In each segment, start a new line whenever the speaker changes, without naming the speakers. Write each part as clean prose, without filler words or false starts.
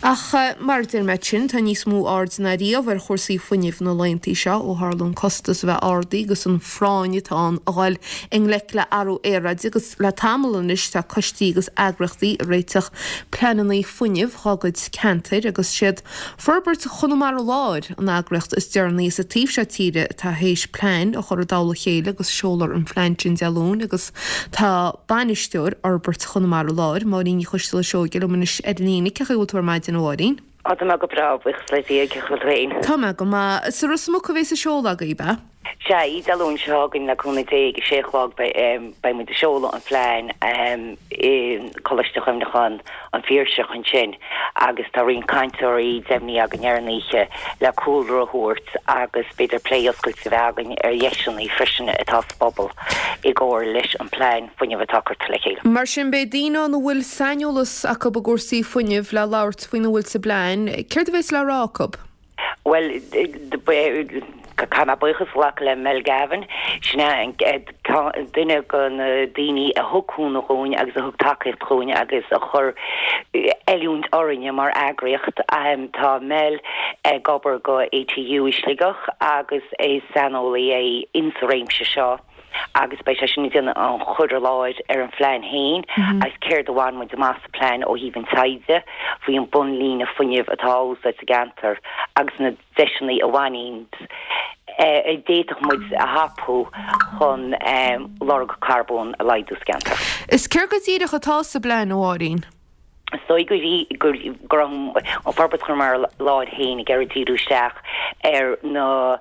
Ach mar a deir mé ansin, tá níos mó aird ná riamh ar chúrsaí fuinnimh na laethanta seo ó tharla an costas a bheith ardaithe agus an phráinn atá ann a dhul i ngleic le athrú aeráide agus le tamall anois tá coistí agus eagraíochtaí ag réiteach pleananna fuinnimh dhá gcuid ceantair agus siad Forbairt Chonamara Láir an eagraíocht is deireanaí sa taobh seo tíre atá théis plean a chur i dtoll a chéile agus seolfar an phlean sin Dé Luain agus tá bainisteoir Fhorbairt Chonamara Láir, Máirín Ní Choisteala Seoige liom anois ar líne. Cén chaoi a bhfuil tú ar maidin a Mháirín?
Á tá mé go breá, buíochas le Dia, cén chaoi a bhfuil tú féin?
Tá mé go maith. Sa Ros Muc a bheas an seoladh agaibh, ab ea?
Sea, Dé Luain seo chugainn le cúnamh Dé ag a sé a chlog beidh muid ag seoladh an phlean i gColáiste Chuimhneacháin an Phiarsaigh ansin agus tá roinnt cainteoirí deimhnithe againn ar an oíche le cúlra a thabhairt agus b'fhéidir plé oscailte a bheith againn ar dheiseanna freisin atá sa bpobal i gcomhar leis an bplean fuinnimh atá curtha le chéile.
Mar sin beidh daoine ann a bhfuil saineolas acu i gcúrsaí fuinnimh le labhairt faoina bhfuil sa bplean. Céard a bheas le rá acu?
Bhuel, caithfidh mé buíochas a ghlacadh le Mel Gavin, sin é duine de na daoine a thug cúnamh dhúinn agus a thug tacaíocht dhúinn agus a chuir oiliúint orainne mar eagraíocht. Tá Mel ag obair go ATU i Sligeach agus is saineolaí é insa réimse seo. agus beidh sé sin ag déanamh an chur i láthair ar an phlean féin agus céard a bhain muid amach sa phlean ó thaobh an taighde faoi an bunlíne fuinnimh atá á úsáid sa gceantar agus na deiseanna a bhaineann a d'fhéadfadh muid a thapú chun lorg carbóin a laghdú sa gceantar.
Is céard go díreach atá sa bplean, a Mháirín?
Is dóigh go raibh an Forbairt Chonamara Láir féin ag iarraidh díriú isteach ar na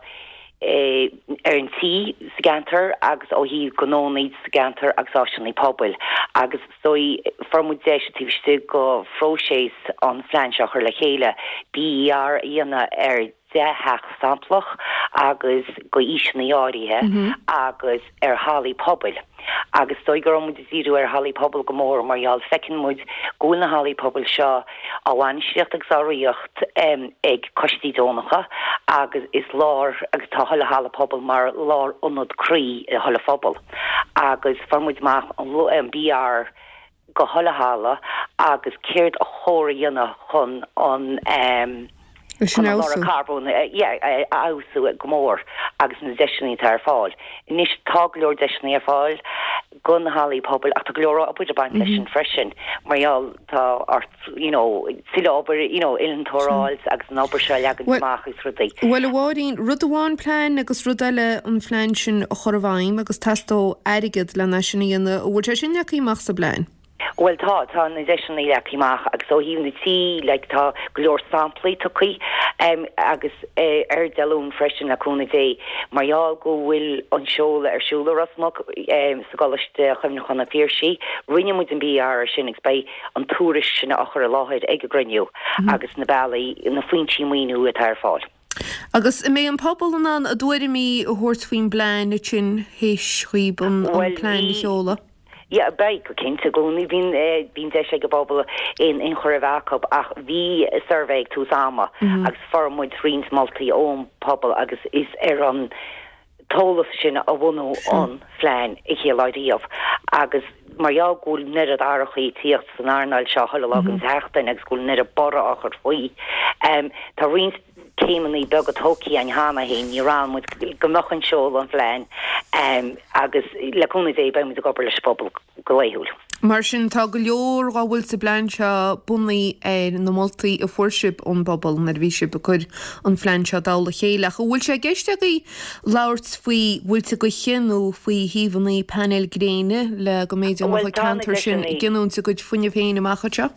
ar an tí sa gceantar agus ó thaobh gnónna sa gceantar agus áiseanna pobail agus is dóigh fuair muid deis taobh istigh de phróiseas an phlean seo a chur le chéile BER a dhéanamh ar 10 theach samplach agus go aoiseanna áirithe agus ar hallaí pobail agus is dóigh go raibh muid ag díriú ar hallaí pobail go mór mar gheall feiceann muid go bhfuil na hallaí pobail seo á bhainistíocht agus á ritheacht ag coistí deonacha agus is lár agus tá chuile halla pobail mar lár ionad croí i chuile phobal agus fuair muid amach an BER go chuile halla agus céard a chóir a dhéanamh chun an chun an lorg carbóin a fheabhsú go mór agus na deiseanna atá ar fáil. Anois tá go leor deiseanna ar fáil go na hallaí pobail ach tá go leor obair ag baint leis sin freisin mar gheall tá ort you know tuilleadh obair you know innealtóir a fháil agus an obair seo a leagan amach agus
rudaí. Bhuel a Mháirín, rud amháin plean agus rud eile an phlean sin a chur i bhfeidhm agus teastóidh airgead lena sin a dhéanamh. An bhfuil sé sin leagtha amach sa bplean?
Bhuel tá, tá na deiseanna leagtha amach agus ó thaobh na tí like tá go leor samplaí tugtha agus ar Dé Luain freisin le cúnamh Dé mar gheall go bhfuil an seoladh ar siúl i Ros Muc sa gColáiste Chuimhneacháin an Phiarsaigh, rinne muid an BER ar sin agus beidh an tuairisc sin á chur i láthair ag an gcruinniú agus na bealaí, na foinsí maoiniú atá ar fáil.
Agus an mbeidh an pobal in ann a dtuairimí a thabhairt faoin bplean ansin théis dhaoib an plean a sheoladh?
Yeah, beidh, go cinnte. I gcónaí bíonn, bíonn deis ag an bpobal aon ionchur a bheith acu ach bhí suirbhé ag tús ama agus fuair muid roinnt moltaí ón bpobal agus is ar an t-eolas sin a bunaíodh an phlean an chéad lá riamh agus mar gheall go bhfuil an oiread athrachaí ag tíocht san earnáil seo chuile lá den tseachtain agus go bhfuil an oiread borradh á chur faoi, tá roinnt céimeanna beaga tógtha againn cheana féin, ní raibh muid go mbeadh an seoladh an phlean agus le cúnamh Dé beidh muid ag obair leis an bpobal go laethúil.
Mar sin tá go leor dhá bhfuil sa bplean seo bunaithe ar na moltaí a fuair sibh ón bpobal nuair a bhí sibh ag cur an phlean seo i dtoll a chéile. Ach an bhfuil sé i gceist agaibh labhairt faoi mhuilte gaoithe nó faoi shuíomhanna painéil gréine le go mb'fhéidir go mbeadh an ceantar sin ag giniúint a gcuid fuinnimh féin amach anseo?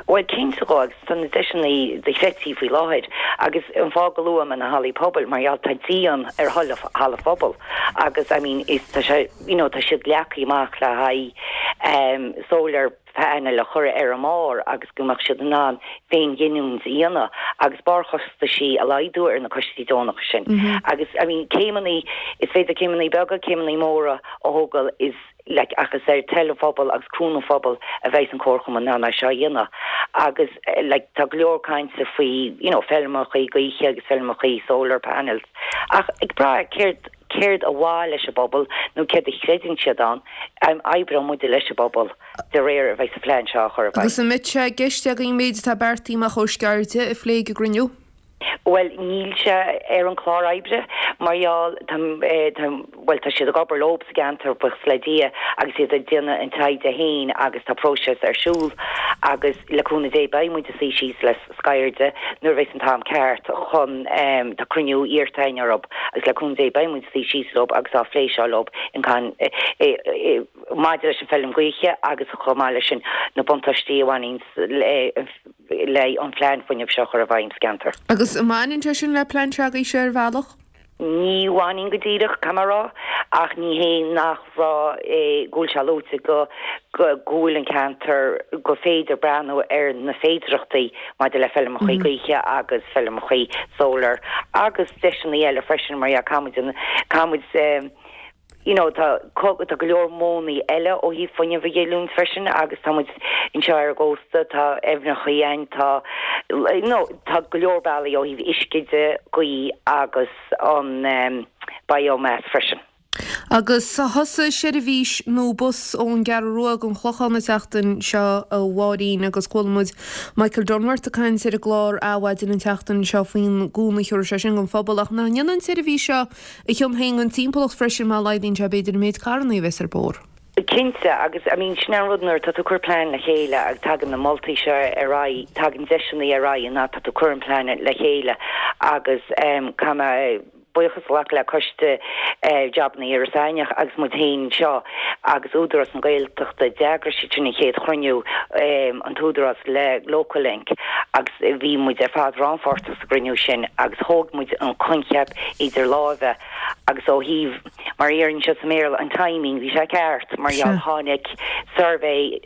Bhuel, cinnte dhó, agus tá na deiseanna dochreidte faoi láthair, agus an fáth go luaim na hallaí pobail, mar gheall tá díon ar chuile halla phobail, agus I mean, is tá sé, you know, tá siad leagtha amach le haghaidh ehm solar panel a chur ar a mbarr agus go mbeadh siad in ann féinghiniúint a dhéanamh agus barrchostaisí a laghdú ar na coistí deonacha sin. Agus I mean, céimeanna, is féidir céimeanna beaga, céimeanna móra a thógáil is, like ach is ar toil an phobail agus cúnamh an phobail a bheidh an comharchumann in ann é seo a dhéanamh agus like tá go leor cainte faoi you know feirmeachaí gaoithe agus feirmeachaí solar panels ach ag brath céard. céard ba mhaith leis an bpobal nó céard a chreideann siad ann, oibreoidh muide leis an bpobal de réir a bheidh an plean seo á chur i
bhfeidhm. Agus an mbeidh sé i gceist agaibh an méid atá beartaithe amach ó Sceirde a phlé ag an gcruinniú?
Bhuel, níl sé ar an chlár oibre mar gheall, tá, tá, bhuel, tá siad ag obair leo sa gceantar, buíochas le Dia, agus iad ag déanamh an taighde féin agus tá próiseas ar siúl agus le cúnamh Dé beidh muid ag suí síos le Sceirde nuair a bheas an t-am ceart chun, tá cruinniú iarrta againn orthu agus le cúnamh Dé beidh muid ag suí síos leo agus á phlé seo leo in can, maidir leis an feilm gaoithe agus chomh maith leis sin na buntáistí a bhaineann le le an phlean fuinnimh seo a chur i bhfeidhm sa gceantar.
Agus an mbaineann sé sin le plean s'agaibhse ar bhealach?
Ní bhaineann go díreach, caithfidh mé a rá, ach ní hé nach raibh, go bhfuil sé luaite go go bhfuil an ceantar, gur féidir breathnú ar na féidearthachtaí maidir le feilmeachaí gaoithe agus feilmeachaí solar agus deiseanna eile freisin mar dhea, caithfidh muid, caithfidh muid, you know tá tá go leor modhanna eile ó thaobh fuinneamh a ghiniúint freisin agus tá muid anseo ar an gcósta, tá aibhneachaí ann, tá you know tá go leor bealaí ó thaobh uisce de, gaoth agus an biomass freisin.
Agus thosaigh seirbhís nua bus ón gCeathrú Rua don Chlochán an tseachtain seo a Mháirín agus chuala muid Michael Dunworth ag caint ar an gclár Adhmhaidin an tseachtain seo faoin gcúnamh a thabharfaidh sé sin don phobal ach nach ndéanann an tseirbhís seo a chion féin don timpeallacht freisin má laghdaíonn sé b'fhéidir an méid carrannaí a bheas ar bóthar.
Cinnte, agus I mean sin an rud nuair atá tú ag cur plean le chéile agus tagann na moltaí seo ar aghaidh, tagann deiseanna ar aghaidh an fhad tá tú ag cur an plean le chéile agus caithfidh mé buíochas a ghlacadh le coiste jabanna Iorras Aithneach agus muid féin anseo agus Údarás na Gaeltachta, d'eagraigh siad sin an chéad chruinniú, an tÚdarás le Local Link agus bhí muid ar fad rannpháirteach sa gcruinniú sin agus thóg muid an coincheap idir láimhe agus ó thaobh, mar a déarfá anseo sa mBéarla, an timing, bhí sé ceart mar gheall tháinig suirbhé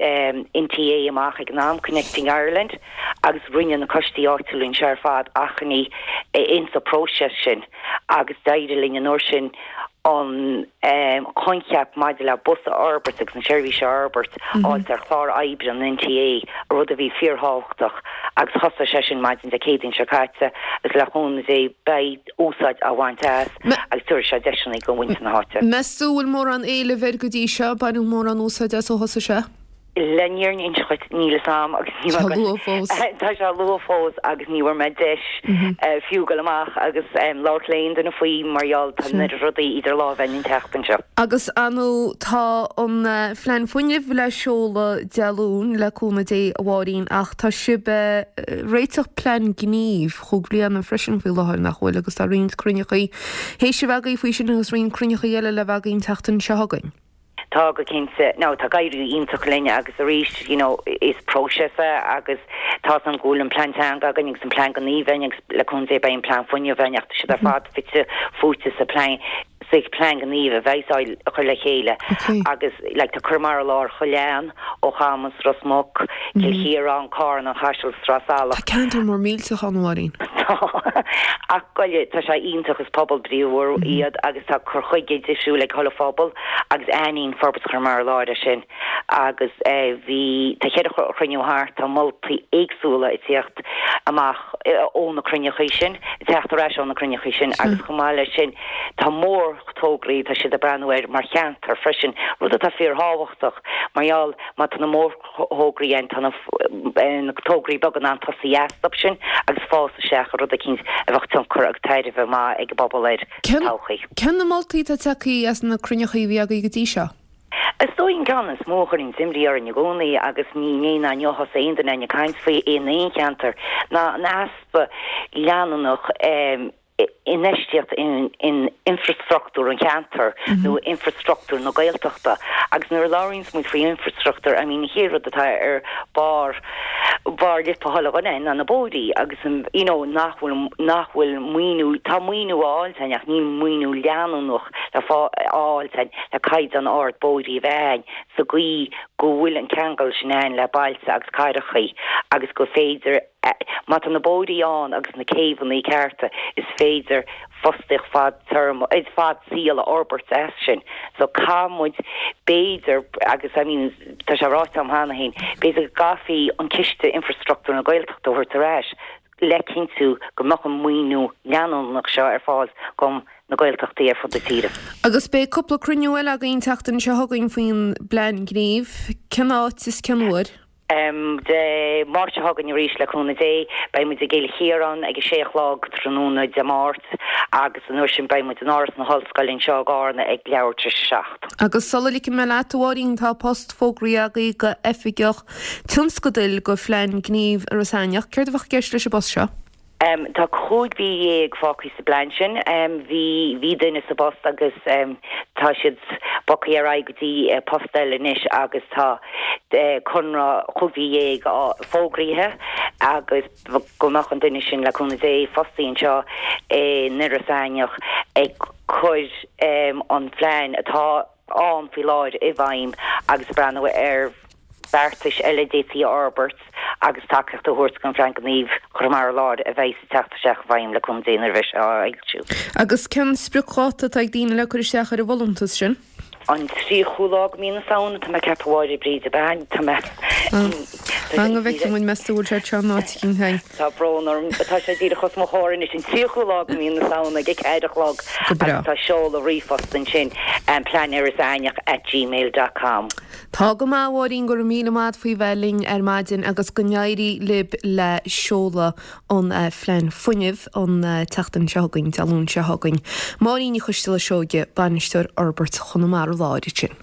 NTA amach ag an am, Connecting Ireland, agus rinne na coistí áitiúla anseo ar fad achainí insa próiseas sin agus d'éirigh linn an uair sin an coincheap maidir le bus a fhorbairt agus an seirbhís a fhorbairt a fháilt ar chlár oibre an NTA, rud a bhí fíorthábhachtach agus thosaigh sé sin maidin Dé Céadaoin seo caite agus le cúnamh Dé beidh úsáid á bhaint as agus tabharfaidh sé deiseanna do mhuintir na háite.
Meas tú an bhfuil mórán éilimh air go dtí seo? Baineadh mórán úsáid as ó thosaigh sé?
Le an fhírinne a inse dhuit, níl fhios a'm agus ní
Tá luath fós.
Tá sé luath fós agus ní bhfuair mé deis fiú dul amach agus labhairt le aon duine faoi mar gheall tá an oiread rudaí idir lámha againn an tseachtain seo.
Agus ar ndóigh tá an Phlean Fuinnimh le seoladh Dé Luain le cúnamh Dé a Mháirín ach tá sibh ag réiteach plean gnímh chúig bliana freisin faoi láthair nach bhfuil agus tá roinnt cruinneachaí théis a bheith agaibh faoi sin agus roinnt cruinneachaí eile le bheith agaibh an tseachtain seo chugainn.
Tá go cinnte. Now tá ag éirí iontach linn agus arís you know is próiseas é agus tá 's a'm go bhfuil an plean teanga againn agus an plean gnímh againn agus le cúnamh Dé beidh an plean fuinnimh againn ach tá siad ar fad fite fuaite sa plean sa plean gnímh a bheidh á chur le chéile agus like tá Conamara Láir chuile cheann ó Chamas, Ros Muc, Cill Chiaráin, Carna, An Caiseal, Sraith Salach.
Tá ceantar mór millteach ann, a Mháirín.
Tá. Ach goile, tá sé iontach, is pobal bríomhar iad agus tá cur chuige difriúil ag chuile phobal agus aithníonn Forbairt Chonamara Láir é sin agus bhí, tá cheithre chruinniú thart, tá moltaí éagsúla ag tíocht amach ó na cruinneachaí sin, ag teacht ar ais ó na cruinneachaí sin agus chomh maith leis sin tá mórthograí, tá siad ag breathnú air mar cheantar freisin, rud atá fíorthábhachtach mar gheall má tá na mórthograí ann, tá na tograí beaga in ann tosaí astu sin agus fás isteach i rud eicínt a bheadh tionchar agus tairbhe maith ag an bpobal air sa todhchaí.
Cén na moltaí atá tagtha as na cruinneachaí a bhí agaibh go dtí seo?
Is dóigh an ceann is mó a chuireann imní orainn i gcónaí agus ní inné ná inniu a thosaigh aon duine againn ag caint faoi in aon cheantar ná an easpa leanúnach infheistíocht in infreastruchtúr an cheantair nó infreastruchtúr na Gaeltachta agus nuair a labhraíonns muid faoi infreastruchtúr I mean an chéad rud atá ar barr barr lipe chuile dhuine ná na bóithrí agus an you know nach bhfuil nach bhfuil maoiniú tá maoiniú á fháilt againn ach níl maoiniú leanúnach le fáil againn le caighdeán ard bóithrí a bheith againn sa gcaoi go bhfuil an ceangal sin ann le bailte agus cathrachaí agus go féidir Má tá na bóithrí ann agus na céibheanna cearta is féidir fostaíocht fad téarma, fad saoil a fhorbairt as sin. So caithfidh muid b'fhéidir, agus I mean tá sé ráite agam cheana féin, b'fhéidir go gcaithfí an ciste infreastruchtúr na Gaeltachta a thabhairt ar ais. Le cinntiú go mbeadh an maoiniú leanúnach seo ar fáil do na Gaeltachtaí ar fud na tíre.
Agus beidh cúpla cruinniú eile againn an tseachtain seo chugainn faoin bplean gnímh. Cén áit is cén uair?
Dé Máirt seo chugainn arís, le cúnamh Dé, beidh muid i gCill Chiaráin ag a sé a chlog tráthnóna Dé Máirt agus an uair sin beidh muid in Áras na hOllscoile anseo i gCarna ag leathuair tar éis a 7.
Agus sula ligfidh mé leat, a Mháirín, tá post fógraithe agaibh do Oifigeach Tionscadail do Phlean Gnímh Iorras Aithneach. Céard a bheadh i gceist leis an bpost seo?
Tá 15 mhí fágtha sa bplean sin. Bhí bhí duine sa bpost agus tá siad bogtha ar aghaidh go dtí post eile anois agus tá conradh 15 mhí fógraithe agus go mbeadh an duine sin, le cúnamh Dé, fostaithe anseo in Iorras Aithneach ag cur an phlean atá ann faoi láthair i bhfeidhm agus ag breathnú ar bheartais eile a d'fhéadfaí a fhorbairt agus tacaíocht a thabhairt don Phlean Gnímh Chonamara Láir a bheidh ag teacht isteach i bhfeidhm le cúnamh Dé nuair a bheidh sé á fhoilsiú.
Agus cén spriocdháta atá ag daoine le cur isteach ar an bhfolúntas sin?
An 30ú lá de mhí na Samhna, tá mé ag ceapadh a Mháire Bríd, ab ea? Tá mé.
Fan go bhfeicfidh muid, meas tú an bhfuil sé anseo in áit eicínt againn?
Tá brón orm, tá sé díreach os mo chomhair anois, an 30ú lá de mhí na Samhna ag a ceathair a chlog
Go breá.
agus tá seoladh ríomhphost ansin, pleaniorrasaithneach at gmail dot com.
Tá go maith, a Mháirín, go raibh míle maith a't faoi bheith linn ar maidin agus go n-éirí libh le seoladh an Phlean Fuinnimh an tseachtain seo chugainn, Dé Luain seo chugainn. Máirín Ní Choisteala Seoige, Bainisteoir Fhorbairt Chonamara Láir ansin.